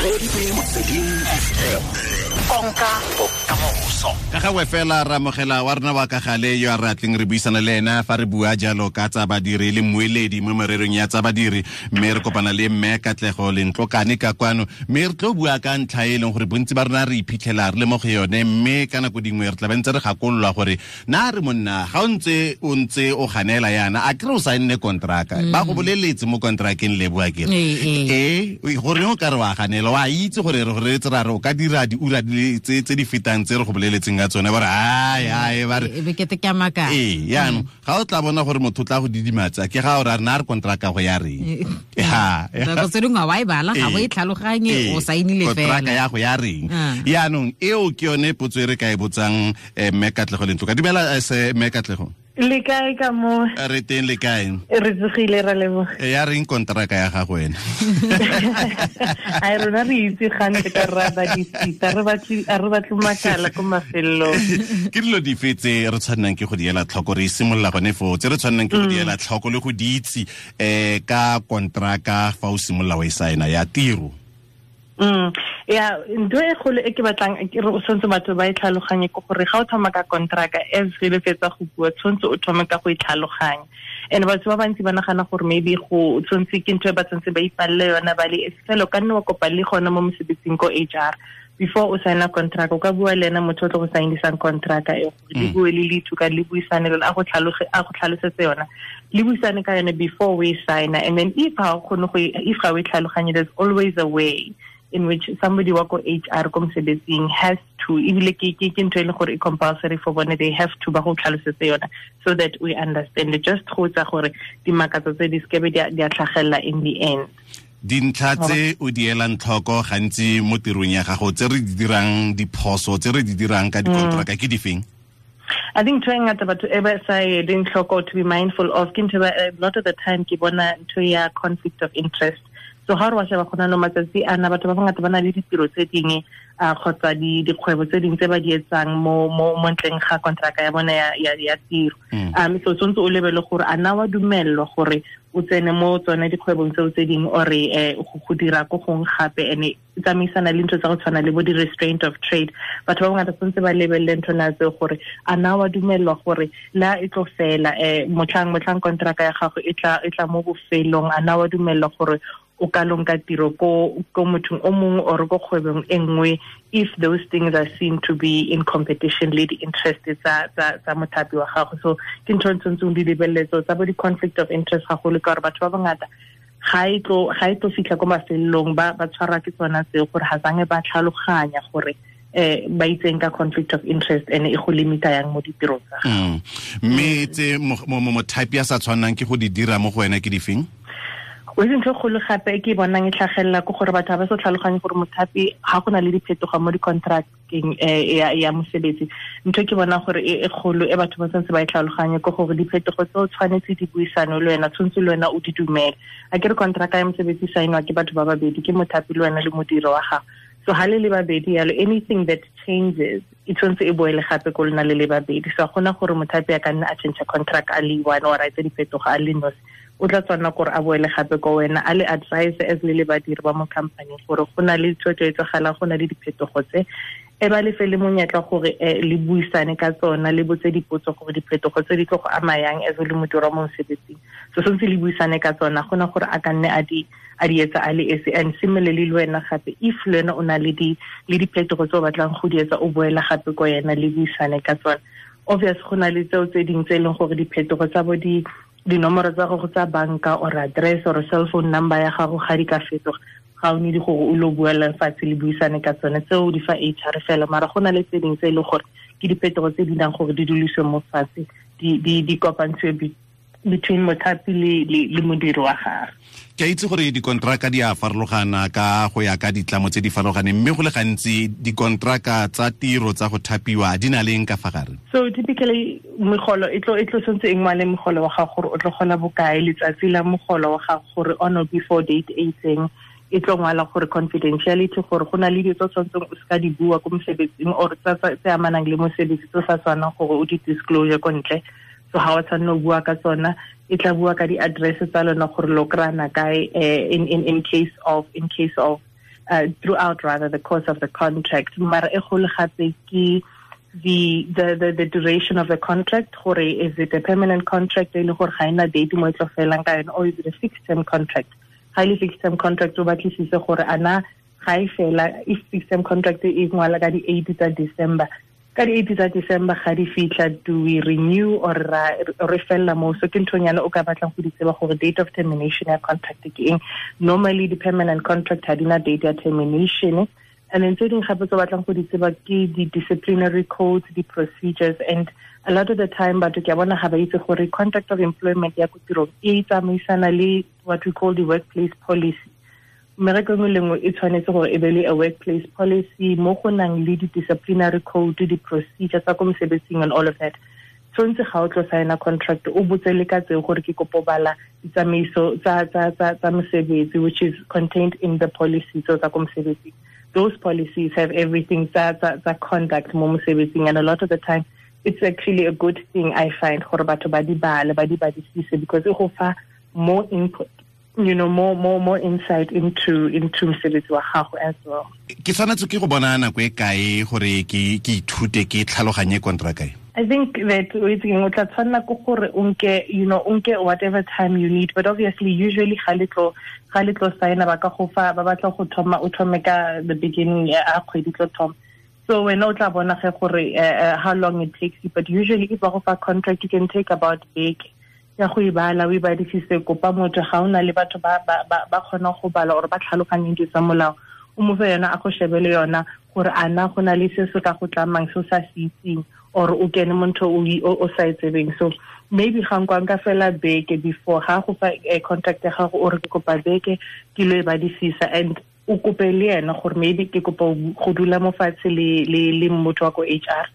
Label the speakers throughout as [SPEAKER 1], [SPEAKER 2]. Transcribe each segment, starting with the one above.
[SPEAKER 1] Motsweding FM, konka bokamoso.
[SPEAKER 2] Ka gangwe fela ra amogela wa rona wa ka gale yo a re atleng re buisana le ena fa re bua jalo ka tsa badiri le mmueledi mo mererong ya tsa badiri, mme re kopana le mme Katlego Lentlokane ka kwano, mme re tlo bua ka ntlha e leng gore bontsi ba rona re iphitlhela re le mo go yone, mme ka nako dingwe re tla be ntse re gakololwa gore na re monna ga o ntse o ntse o ganela yana a kere o saenne kontraka, ba go boleletse mo kontrakeng le bua kere ee gore o ka re wa ganela, wa itse gore re re tse ra re o ka dira diura di tse di fetang tse re go boleletseng ka tsone, ba re ai ai ba re
[SPEAKER 3] e be kete ke a maka.
[SPEAKER 2] Ee, yaanong ga o tla bona gore motho o tla go didimatsa ke ga o ra rena re kontraka go ya reng. Ha
[SPEAKER 3] nako tse dingwe wa e bala ga o e tlhaloganye, o saenile fela
[SPEAKER 2] kontraka ya go ya reng. Yaanong eo ke yone potso e re ka e botsang mme Katlego Lentloka. Dumela se mme Katlego.
[SPEAKER 4] Le kae ka mo?
[SPEAKER 2] Re teng, le kae?
[SPEAKER 4] Re tsogile, ra leboga.
[SPEAKER 2] Ya reng kontraka ya gago wena?
[SPEAKER 4] Ai, rona re itse gante ka ra badisisa, re batle a re batle makala ko mafelong.
[SPEAKER 2] Ke dilo dife tse re tshwannang ke go di ela tlhoko, re simolola gone foo, tse re tshwannang ke go di ela tlhoko le go di itse ka kontraka fa o simolola o e saena ya tiro?
[SPEAKER 4] Ya, ntho e kgolo e ke batlang ke re o tshwanetse batho ba e tlhaloganye ke gore ga o thoma ka kontraka, as re le fetsa go bua, tshwanetse o thome ka go e tlhaloganya. And batho ba bantsi ba nagana gore maybe go tshwanetse ke ntho e ba tshwanetse ba ipalle yona ba le fela, o ka nne wa kopa le gona mo mosebetsing ko HR before o signa contract, o ka bua le ena motho o tlo go signisang contract e gore le bue le lithu ka le buisane le a go tlhaloge, a go tlhalosetse yona, le buisane ka yone before we sign. And then if ha o kgone go if ga o e tlhaloganye, there's always a way in which somebody wa ko HR ko mosebetsing has to, ebile ke ntho e leng gore e compulsory for bone, they have to ba go tlhalosetse yona so that we understand it, just go tsa gore dimakatso tse di sekebe di a tlhagelela in the end.
[SPEAKER 2] Dintlha tse o di elang tlhoko gantsi mo tirong ya gago tse re di dirang diphoso tse re di dirang ka dikontraka ke difeng?
[SPEAKER 4] I think ntho e ngata batho e ba sa e leng tlhoko to be mindful of ke ntho a lot of the time ke bona ntho ya conflict of interest. So ga re wa sheba gona no matsatsi ana batho ba bangata ba na le ditiro tse dingwe kgotsa dikgwebo tse dingwe tse ba di etsang mo mo mo ntleng ga kontraka ya bona ya tiro. So tshwanetse o lebele gore a na wa dumellwa gore o tsene mo tsone dikgwebong tseo tse dingwe ore go dira ko gongwe gape, ene e tsamaisana le ntho tsa go tshwana le bo di-restraint of trade. Batho ba bangata tshwanetse ba lebelele ntho na tseo gore a na wa dumellwa gore la e tlo fela motlhang kontraka ya gago e tla mo bofelong, a na wa dumellwa gore o ka lonka tiro ko mothong o mongwe or ko kgwebong e nngwe, if those things are seen to be in competition le di-interest tsa mothapi wa gago. So ke ntho e tshwanetseng di lebeletse tsa bo di-conflict of interest gagolo, ka gore batho ba bangata ga e tlo fitlha ko mafelelong ba tshwarwa ke tsona tseo gore ga zange ba tlhaloganya gore ba itseng ka conflict of interest ene e go limita yang mo ditirong tsa gago.
[SPEAKER 2] Mme tse mothapi a sa tshwannang ke go di dira mo go wena ke difeng?
[SPEAKER 4] O itse ntho e kgolo gape e ke e bonang e tlhagelela ke gore batho ga ba sa tlhaloganye gore mothapi ga go na le diphetogo mo di-contracteng ya mosebetsi. Ntho e ke bonang gore e kgolo e batho ba tshwanetse ba e tlhaloganye ke gore diphetogo tseo tshwanetse di buisane le wena, tshwanetse le wena o di dumele. A ke re contract ya mosebetsi saenwa ke batho ba babedi, ke mothapi le wena le modiri wa gago. So ha le le babedi yalo, anything that changes e tshwanetse e boele gape ko lona le le babedi. So ga gona gore mothapi a ka nna a change contract a le one or a etse diphetogo a le nosi, o tla tshwanela gore a boele gape ko wena a le advise as le le badiri ba mo company gore go na le tshwetso e tsagalang, go na le diphetogo tse, e ba lefe le monyetla gore le buisane ka tsona, le botse dipotso gore diphetogo tse di tlo go ama yang as le modiri wa mo mosebetsing. So tshwanetse le buisane ka tsona, gona gore a ka nne a di etsa a le esi. And similarly le wena gape, if le wena o na le diphetogo tse o batlang go di etsa, o boela gape ko yena le buisane ka tsona. Obvious go na le tseo tse dingwe tse e leng gore diphetogo tsa bo dinomoro tsa gago tsa banka or address or cell phone number ya gago ga di ka fetoga, ga o need gore o lo buela fatshe le buisane ka tsone, tseo di fa HR fela. Mara go na le tse dingwe tse e leng gore ke diphetogo tse di nang gore di duliswe mo fatshe, di kopantswe between mothapi le modiri wa gagwe.
[SPEAKER 2] Ke a itse gore dikontraka di a farologana ka go ya ka ditlamo tse di farologaneng, mme go le gantsi dikontraka tsa tiro tsa go thapiwa di na leng ka fa gare?
[SPEAKER 4] So typically megolo e tlo tshwanetse e ngwale mogolo wa gago gore o tlo gola bokae, letsatsi la mogolo wa gago gore on or before date e itseng, e tlo ngwala gore confidentiality, gore go na le dilo tse o tshwanetseng o seka di bua ko mosebetsing or tse amanang le mosebetsi tse o sa tshwanang gore o di disclosure ko ntle. So ha o tshwanela go bua ka tsona, e tla bua ka di-address tsa lona gore lo kry-ana kae in case of throughout rather the course of the contract. Mara e golo gape ke the duration of the contract, gore is it a permanent contract e le gore ga ena date mo e tlo felang ka yone, or is it a fixed term contract? Ga e le fixed term contract, o batlisise gore ana ga e fela. If fixed term contract e ngwala ka di 8 tsa December, ka di 8 tsa December ga di fitlha, do we renew or re fella mo? So ke nthonyana o ka batlang go di tseba gore date of termination ya contract ke eng. Normally the permanent contract ha di na date ya termination. And then tse dingwe gape tse batlang go di tseba ke di disciplinary codes, di procedures, and a lot of the time batho ke a bona ga ba itse gore contract of employment ya ko tirong e tsamaisana le what we call the workplace policy. Mmereko engwe le nngwe e tshwanetse gore e be le a workplace policy mo go nang le di-disciplinary code, di-procedure tsa ko mosebetsing and all of that. Tshwanetse ga o tlo signa contract o botse le ka tseo gore ke kopo bala ditsamaiso tsa mosebetsi, which is contained in the policy tsa ko mosebetsing. Those policies have everything tsa conduct mo mosebetsing, and a lot of the time it's actually a good thing, I find, gore batho ba di bale, ba di badisise, because e go fa more input, you know, more insight into mosebetsi wa gago as well.
[SPEAKER 2] Ke tshwanetse ke go bona nako e kae gore ke ithute ke tlhaloganye contract e?
[SPEAKER 4] I think that o tla tshwanela ke gore o nke, you know, o nke whatever time you need, but obviously usually ga le tlo signa ba ka go fa, ba batla go thoma o thome ka the beginning ya kgwedi tlo thoma. So wena o tla bona ge gore how long it takes you, but usually if ba go fa contract you can take about beke ya go e bala, o e badisise, kopa motho ga o na le batho ba kgona go bala or ba tlhaloganyeng dilo tsa molao, o mo fe yona a go shebele yona gore ana go na le se se ka go tlamang se o sa se itseng, or o kene mo ntho o sa e tsebeng. So maybe ga nka nka fela beke before ga go fa contract ya gago, o re ke kopa beke ke lo e badisisa, and o kope le ena gore maybe ke kopa go dula mo fatshe le motho wa ko HR,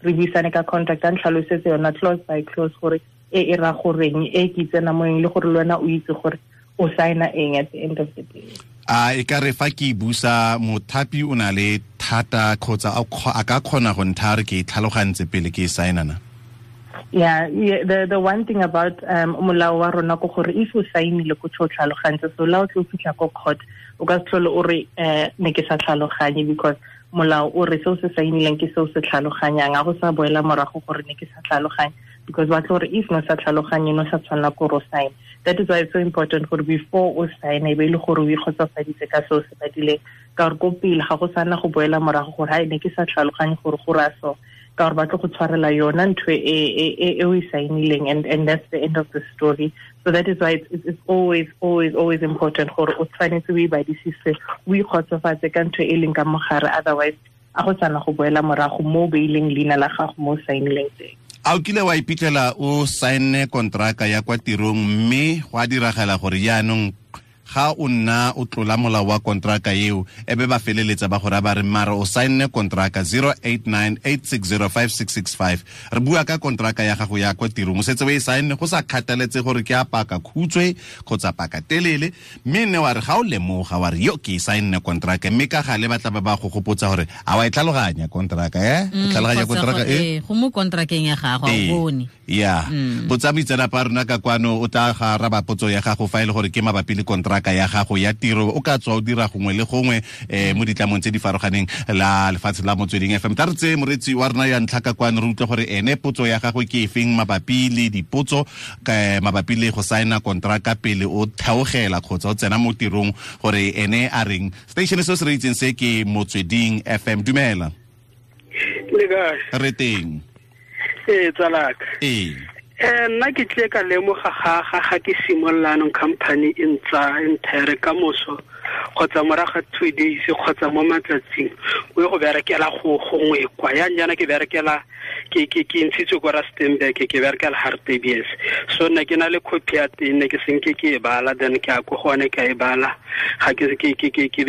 [SPEAKER 4] re buisane ka contract, a ntlhalosetse yona clause by clause gore e ra goreng, e ke tsena mo eng, le gore le wena o itse gore o signa eng at the end of the day.
[SPEAKER 2] A e ka re fa ke busa mothapi o na le thata kgotsa a ka kgona go ntha re ke tlhalogantse pele ke signa na?
[SPEAKER 4] Yeah, the one thing about molao wa rona ke gore if o signile ko tlo tlhalogantse, so la o tlo fitlha ko court o ka se tlhole o re ne ke sa tlhaloganye, because molao o re seo se signileng ke seo se tlhaloganyang, a go sa boela morago gore ne ke sa tlhaloganye, because ba tlo re if no sa tlhaloganye no sa tshwanela ko ro sign. That is why it's so important gore before o sign e be le gore o ikgotsofaditse ka seo se badileng, ka gore ko pele ga go sana go boela morago gore ha ne ke sa tlhaloganye gore go ra so, ka gore ba tlo go tshwarela yona ntho e o e signileng, and that's the end of the story. So that is why it's always always always important gore o tshwanetse o e badisise, o ikgotsofatse ka ntho e leng ka mogare, otherwise a go sana go boela morago mo beileng leina la gago mo signileng teng.
[SPEAKER 2] A o kile wa iphitlhela o saenne kontraka ya kwa tirong mme go a diragala gore jaanong ga o nna o tlola molao wa kontraka eo, e be ba feleletsa ba gore ba re mara o saenne kontraka 0898605665, re bua ka kontraka ya gago ya kwa tirong, o setse o e saenne go sa kgathaletse gore ke a paka khutshwe kgotsa paka telele, mme nne wa re ga o lemoga wa re yo ke e saenne kontraka, mme ka gale ba tla ba go gopotsa gore a wa e tlhaloganya kontraka e tlhaloganya kontraka e
[SPEAKER 3] go mo kontrakeng ya gago a o bone.
[SPEAKER 2] Ya botsa moitseanape a rona ka kwano o tla ga araba potso ya gago fa e le gore ke mabapi le kontraka ya gago ya tiro, o ka tswa o dira gongwe le gongwe mo ditlamong tse di farologaneng la lefatshe la Motsweding FM. Tla re tseye moretsi wa rona ya ntlha ka kwano re utlwe gore ene potso ya gagwe ke efeng mabapi le dipotso mabapi le go saena kontraka pele o theogela kgotsa o tsena mo tirong, gore ene a reng. Station se se re itseng se ke Motsweding FM. Dumela.
[SPEAKER 5] Le kae?
[SPEAKER 2] Re teng.
[SPEAKER 5] Ee, tsalaka.
[SPEAKER 2] Ee.
[SPEAKER 5] Nna ke tle ka lemoga ga ke simolola anong company e ntsa entire ka moso kgotsa morago 2 days kgotsa mo matsatsing o ye go berekela go gongwe kwa yang jaana ke berekela ke ntshitswe ko Rustenburg, ke berekela Hartbees, so nna ke na le copy ya teng, ne ke senke ke e bala, then ke a ko gone ka e bala, ga ke be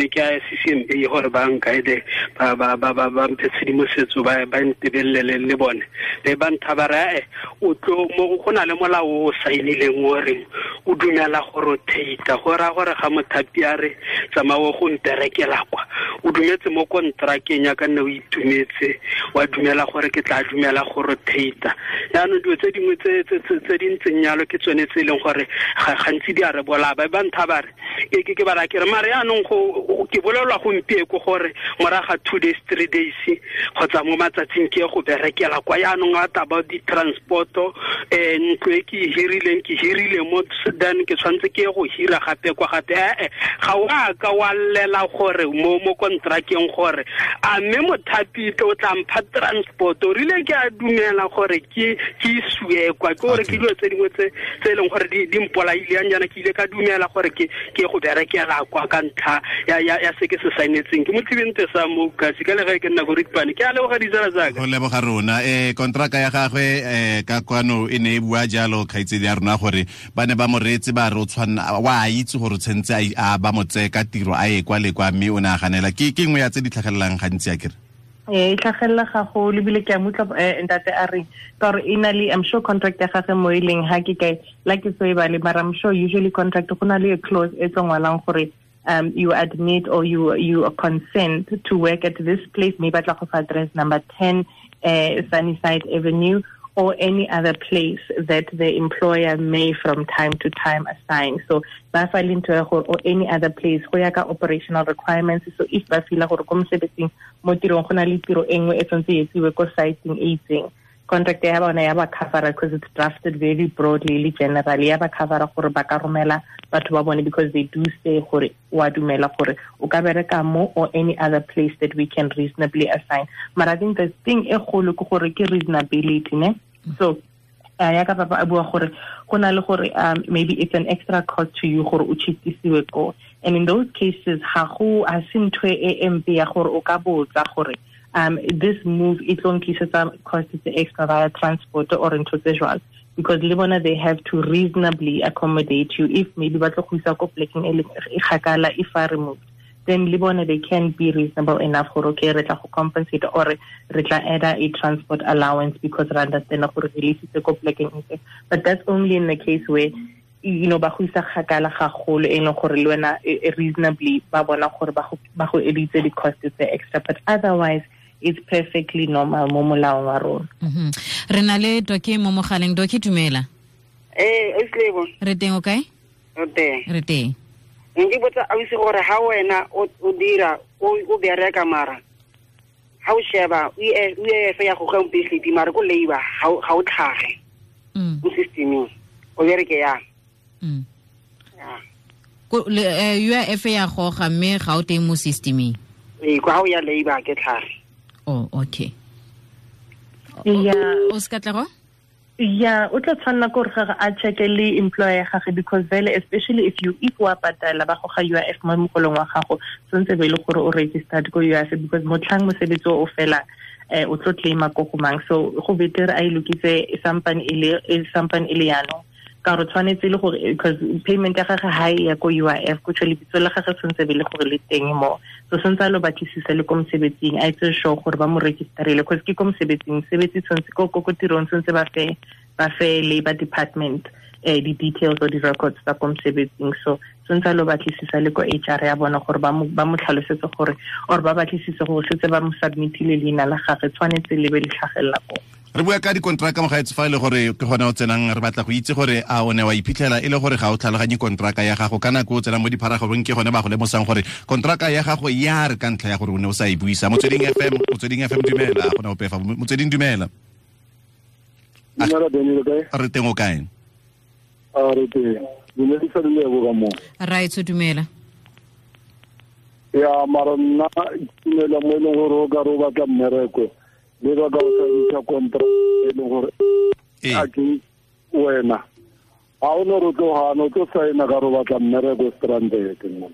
[SPEAKER 5] ke a CCMA gore ba nkaede ba mphe tshedimosetso ba ntebelele le bone be ba ntha ba re o tlo mo go na le molao o saenileng o reng o dumela gore o theita, go raya gore ga mothapi a re tsamaya go mperekela kwa o O dumetse mo kontrakeng ya ka nne o itumetse, wa dumela gore ke tla dumela go rotate. Yaanong dilo tse dingwe tse di ntseng yalo ke tsone tse e leng gore gantsi di a re bolaya. Ba ntha ba re ke ba ra ke re mare yaanong go ke bolelwa gompieko gore moraga 2 days 3 days kgotsa mo matsatsing ke go berekela kwa. Yaanong a taba di-transporto, ntlo e ke hirileng, ke hirile mo then ke tshwanetse ke go hira gape kwa gape. Ga o a ka wa llela gore mo kontrakeng gore a mme mothapi o tla mpha transport, o rile ke a dumela gore ke isue kwa. Ke gore ke dilo tse dingwe tse e leng gore di mpolaile yang jaana, ke ile ka dumela gore ke go berekela kwa ka ntlha ya se ke se saenetseng. Ke motlhibente sa mo kasi ka le ge ke nna go Ripane. Ke a leboga ditsala tsaka.
[SPEAKER 2] Go leboga rona. Kontraka ya gagwe ka kwano e ne e bua jalo kgaitsedi ya rona gore ba ne ba mo reetse ba re o tshwanna wa itse gore tshwantse a ba mo tseye ka tiro a ye kwa le kwa, mme o ne a ganela. Ke nngwe ya tse di tlhagelelang gantsi a kere?
[SPEAKER 4] E tlhagelela gagolo ebile ke a mutla ntate a reng ka gore e na le, I'm sure contract ya gagwe mo e leng ha ke kae la ke so e bale, mara I'm sure usually contract go na le a clause e tlo ngwalang gore you admit or you consent to work at this place, maybe batla go fa address number 10 Sunnyside Avenue or any other place that the employer may from time to time assign. So ba fa le ntho ya gore or any other place go ya ka operational requirements. So if ba feel gore ko mosebetsing mo tirong go na le tiro e nngwe e tshwanetse e etsiwe ko siteng e itseng, contract ya bona ya ba covera because it's drafted very broadly le generally, ya ba covera gore ba ka romela batho ba bone because they do say gore wa dumela gore o ka bereka mo or any other place that we can reasonably assign. Mara I think the thing e kgolo ke gore ke reasonability, ne? So ya ka papa a bua gore go na le gore maybe it's an extra cost to you gore o chitisiwe ko, and in those cases ga go a se ntho e mpe ya gore o ka botsa gore this move e tlo nklisetsa cost tse extra via transport or ntho tse jwalo, because le bona they have to reasonably accommodate you. If maybe ba tlo go isa ko plekeng e kgakala if I removed, then le bona they can be reasonable enough gore okay re tla go compensate or re tla add a transport allowance because re understand gore re isitse ko plekeng e. But that's only in the case where you know ba go isa kgakala gagolo e leng gore le wena reasonably ba bona gore ba go editse di-cost tse extra, but otherwise it's perfectly normal mo molaong wa rona.
[SPEAKER 3] Re na le Doki mo mogaleng. Doki, dumela.
[SPEAKER 6] Eslebo.
[SPEAKER 3] Re teng o kae?
[SPEAKER 6] Re teng.
[SPEAKER 3] Re teng.
[SPEAKER 6] Nke botsa ausi gore ha wena o dira o bereka mara ha o sheba UIF ya go ga mpehli mara ko labor ha o tlhage mo systeming o bereke yang.
[SPEAKER 3] Ko UIF ya goga mme ga o teng mo systeming.
[SPEAKER 6] Kwa ha o ya labor ke tlhage.
[SPEAKER 3] Oh, okay.
[SPEAKER 4] Yeah.
[SPEAKER 3] O ska tla go?
[SPEAKER 4] Yeah, o tla tshwanela gore ga a check le employer gagwe because vele especially if you if wa patala ba goga UIF mo mogolong wa gago tshwanetse be le gore o registered ko UIF because motlhang mosebetsi o fela o tlo claima ko go mang. So go better a ilokitse sampane e le yano ka gore tshwanetse le gore because payment ya gagwe ha e ya ko UIF go tshwele bitso la gagwe tshwanetse be le gore le teng mo. So tshwanetse a lo batlisisa le ko mosebetsing a itse sure gore ba mo registerile because ke ko mosebetsing sebetsi tshwanetse ko tirong tshwanetse ba fe labor department di details or di records tsa ko mosebetsing. So tshwanetse a lo batlisisa le ko HR ya bona gore ba mo tlhalosetse gore or ba batlisise gore setse ba mo submitile leina la gagwe tshwanetse le be le tlhagelela ko.
[SPEAKER 2] Re bua ka dikontraka mogaetsi fa e le gore ke gona o tsenang, re batla go itse gore a o ne wa iphitlhela e le gore ga o tlhaloganye kontraka ya gago ka nako o tsenang mo dipharagobeng, ke gone ba go lemosang gore kontraka ya gago ya re ka ntlha ya gore o ne o sa e buisa. Motsweding FM dumela, gona ope fa Motsweding dumela. Re teng o kae?
[SPEAKER 7] A re teng. Dumedisa le lebo ka mo.
[SPEAKER 3] Right, dumela.
[SPEAKER 7] Ya mara nna dumela mo e leng gore o ka re o batla mmereko le ba ka o saenisa contract e leng gore a ke wena ga o ne re tlo gana o tlo saena ka re o batla mmereko stranded mo.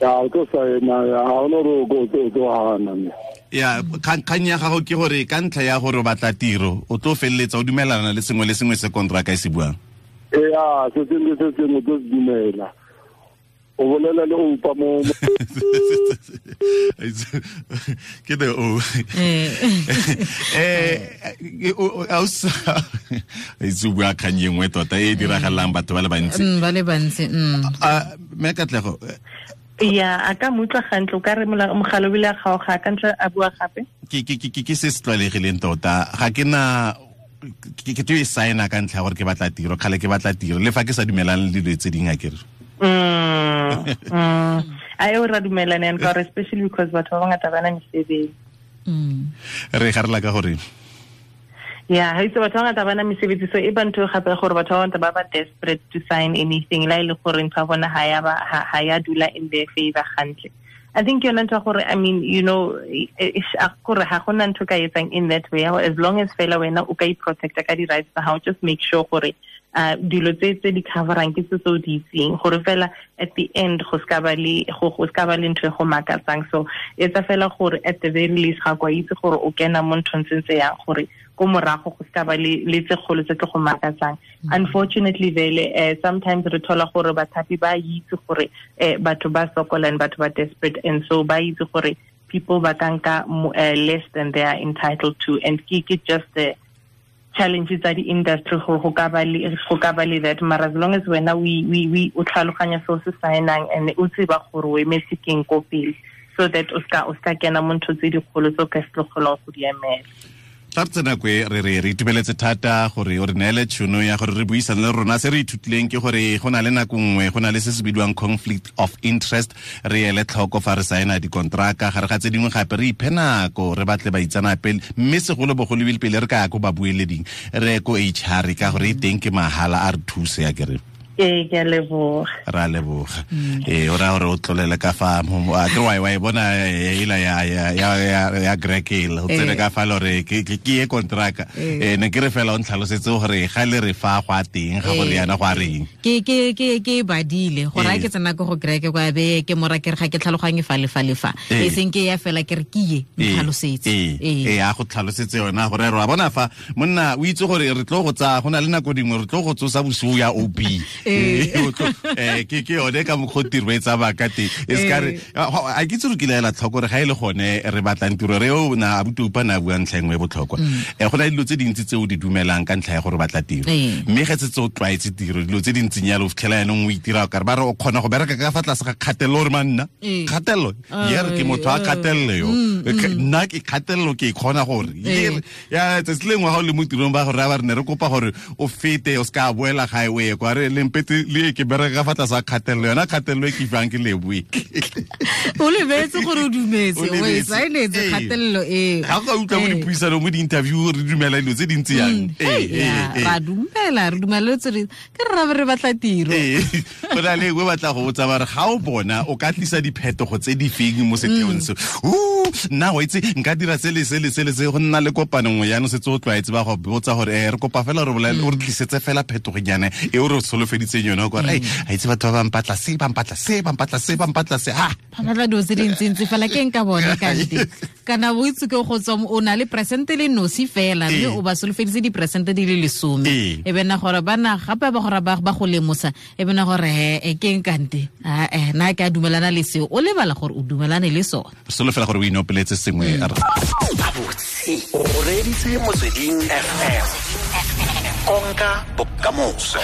[SPEAKER 7] Ya o tlo saena ga o ne re o tlo gana.
[SPEAKER 2] Ya kgang ya gago ke gore ka ntlha ya gore o batla tiro o tlo feleletsa o dumelana le sengwe le sengwe se contract e se buang.
[SPEAKER 7] Ya se sengwe se sengwe tlo se dumela. O bolela le oupa mo
[SPEAKER 2] ke the o itse bua kgang e nngwe tota e diragalang batho ba le bantsi.
[SPEAKER 3] Ba le bantsi.
[SPEAKER 2] Mme Katlego
[SPEAKER 4] Ya, a ka mo utlwa gantle, o ka re mogala o bile a kgaoga, ka ntle a bua gape.
[SPEAKER 2] Ke se se tlwaelegileng tota. Ga ke na ke teo e signa ka ntlha ya gore ke batla tiro, kgale ke batla tiro, le fa ke sa dumelane le dilo tse dingwe akere.
[SPEAKER 4] A eo ra dumelane and ka gore especially because batho ba bangata ba na mesebetsi.
[SPEAKER 2] Re garela ka gore
[SPEAKER 4] ya ha itse batho ba bangata ba na mesebetsi, so e ba ntho gape gore batho ba bangata ba ba desperate to sign anything la ile gore ntho ya bona ha ya dula in their favor hantle. I think yona ntho gore, I mean, you know, gore ha gona ntho ka etsang in that way, as long as fela wena o ka i-protecta ka di-rights tsa hao, just make sure gore dilo tse di coverang ke tse o di itseng, gore fela at the end go ska ba le ntho e go makatsang. So etsa fela gore at the very least ga kwa itse gore o kena mo nthong tse ntse yang, gore ko morago go ska ba le tse kgolo tse tlo go makatsang. Unfortunately vele sometimes re thola gore bathapi ba itse gore batho ba sokola and batho ba desperate, and so ba itse gore people ba ka nka less than they are entitled to, and ke just the challenges tsa di-industry gore go ka ba le that. Mara as long as wena we o tlhaloganya se o se signang and o tseba gore o emetse keng ko pele, so that o ska kena mo ntho tse dikgolo tse o ka se tlo kgonang go di emela.
[SPEAKER 2] Tla re tsena kwe re itumeletse thata gore o re neele tšhono ya gore re buisane le rona. Se re ithutileng ke gore go na le nako nngwe go na le se se bidiwang conflict of interest, re ele tlhoko fa re saena dikontraka, gare ga tse dingwe gape re iphe nako re batle baitsanape, mme segolobogolo ebile pele re ka ya ko babueleding re ko HR ka gore e teng ke mahala a re thuse ya kere.
[SPEAKER 4] Ee, ke a leboga.
[SPEAKER 2] Ra leboga. O raya gore o tlolele ka fa a ke wa e bona ela ya Greg o tsene ka fa lore ke ye kontraka. Ne ke re fela o ntlhalosetse gore ga le re fa go a teng ga gore yana go a reng.
[SPEAKER 3] Ke badile gore a ke tsena ko go Greg kwa be ke mora ke re ga ke tlhaloganye fa le fa le fa. E seng ke ya fela ke re ke ye ntlhalosetse.
[SPEAKER 2] Ee, a go tlhalosetse yona gore re a bona fa monna o itse gore re tlo go tsaya go na le nako dingwe re tlo go tsosa bosigo ya OB. Ke yone ka mokgwa tiro e tsamaya ka teng. E se ka re a ke itse re kile ela tlhoko gore ga e le gone re batlang tiro re o na abuti upa na bua ntlha engwe e botlhokwa. Go na le dilo tse dintsi tse o di dumelang ka ntlha ya gore batla tiro. Mme ge setse o tlwaetse tiro dilo tse dintseng yalo o fitlhela yanong o itira o kare ba re o kgona go bereka ka fa tlase ga kgatelelo gore manna kgatelelo ye re ke motho a kgatelelo yo nna ke kgatelelo ke e kgona gore ya tsatsi lengwe ga o le mo tirong ba gore ba re ne re kopa gore o fete o se ka boela gae o ye kwa re lempete le ke bereka fa tlase ga kgatelelo yona kgatelelo e ke fang ke leboe.
[SPEAKER 3] O lebetse gore o dumetse o e saenetse kgatelelo e
[SPEAKER 2] ga go utlwa mo dipuisanong mo di-interview re dumela dilo tse dintsi yang.
[SPEAKER 3] Ra dumela re dumeletse re ke re re batla tiro.
[SPEAKER 2] Go na le engwe batla go botsa ba re ga o bona o ka tlisa diphetogo tse di feng mo setheong se. Nna wa itse nka dira se le se le se le se go nna le kopano nngwe jaanong setse o tlwaetse ba go botsa gore re kopa fela re bolele o re tlisetse fela phetogonyana e o re solofeditseng yone gore a itse batho ba bampatla se bampatla se bampatla se bampatla se ha
[SPEAKER 3] ba batla dilo tse dintsintsi fela ke nka bone kante kana o itse ke go tswa o na le presente le nosi fela mme o ba solofeditse diperesente di le 10 e bena gore bana gape ba gore ba go lemosa e bena gore e ke kante na ke a dumelana le seo o lebala gore o dumelane le sone.
[SPEAKER 2] Solofela gore o inopeletse sengwe.
[SPEAKER 1] Gabotse o reditse Motsweding FM, konka bokamoso.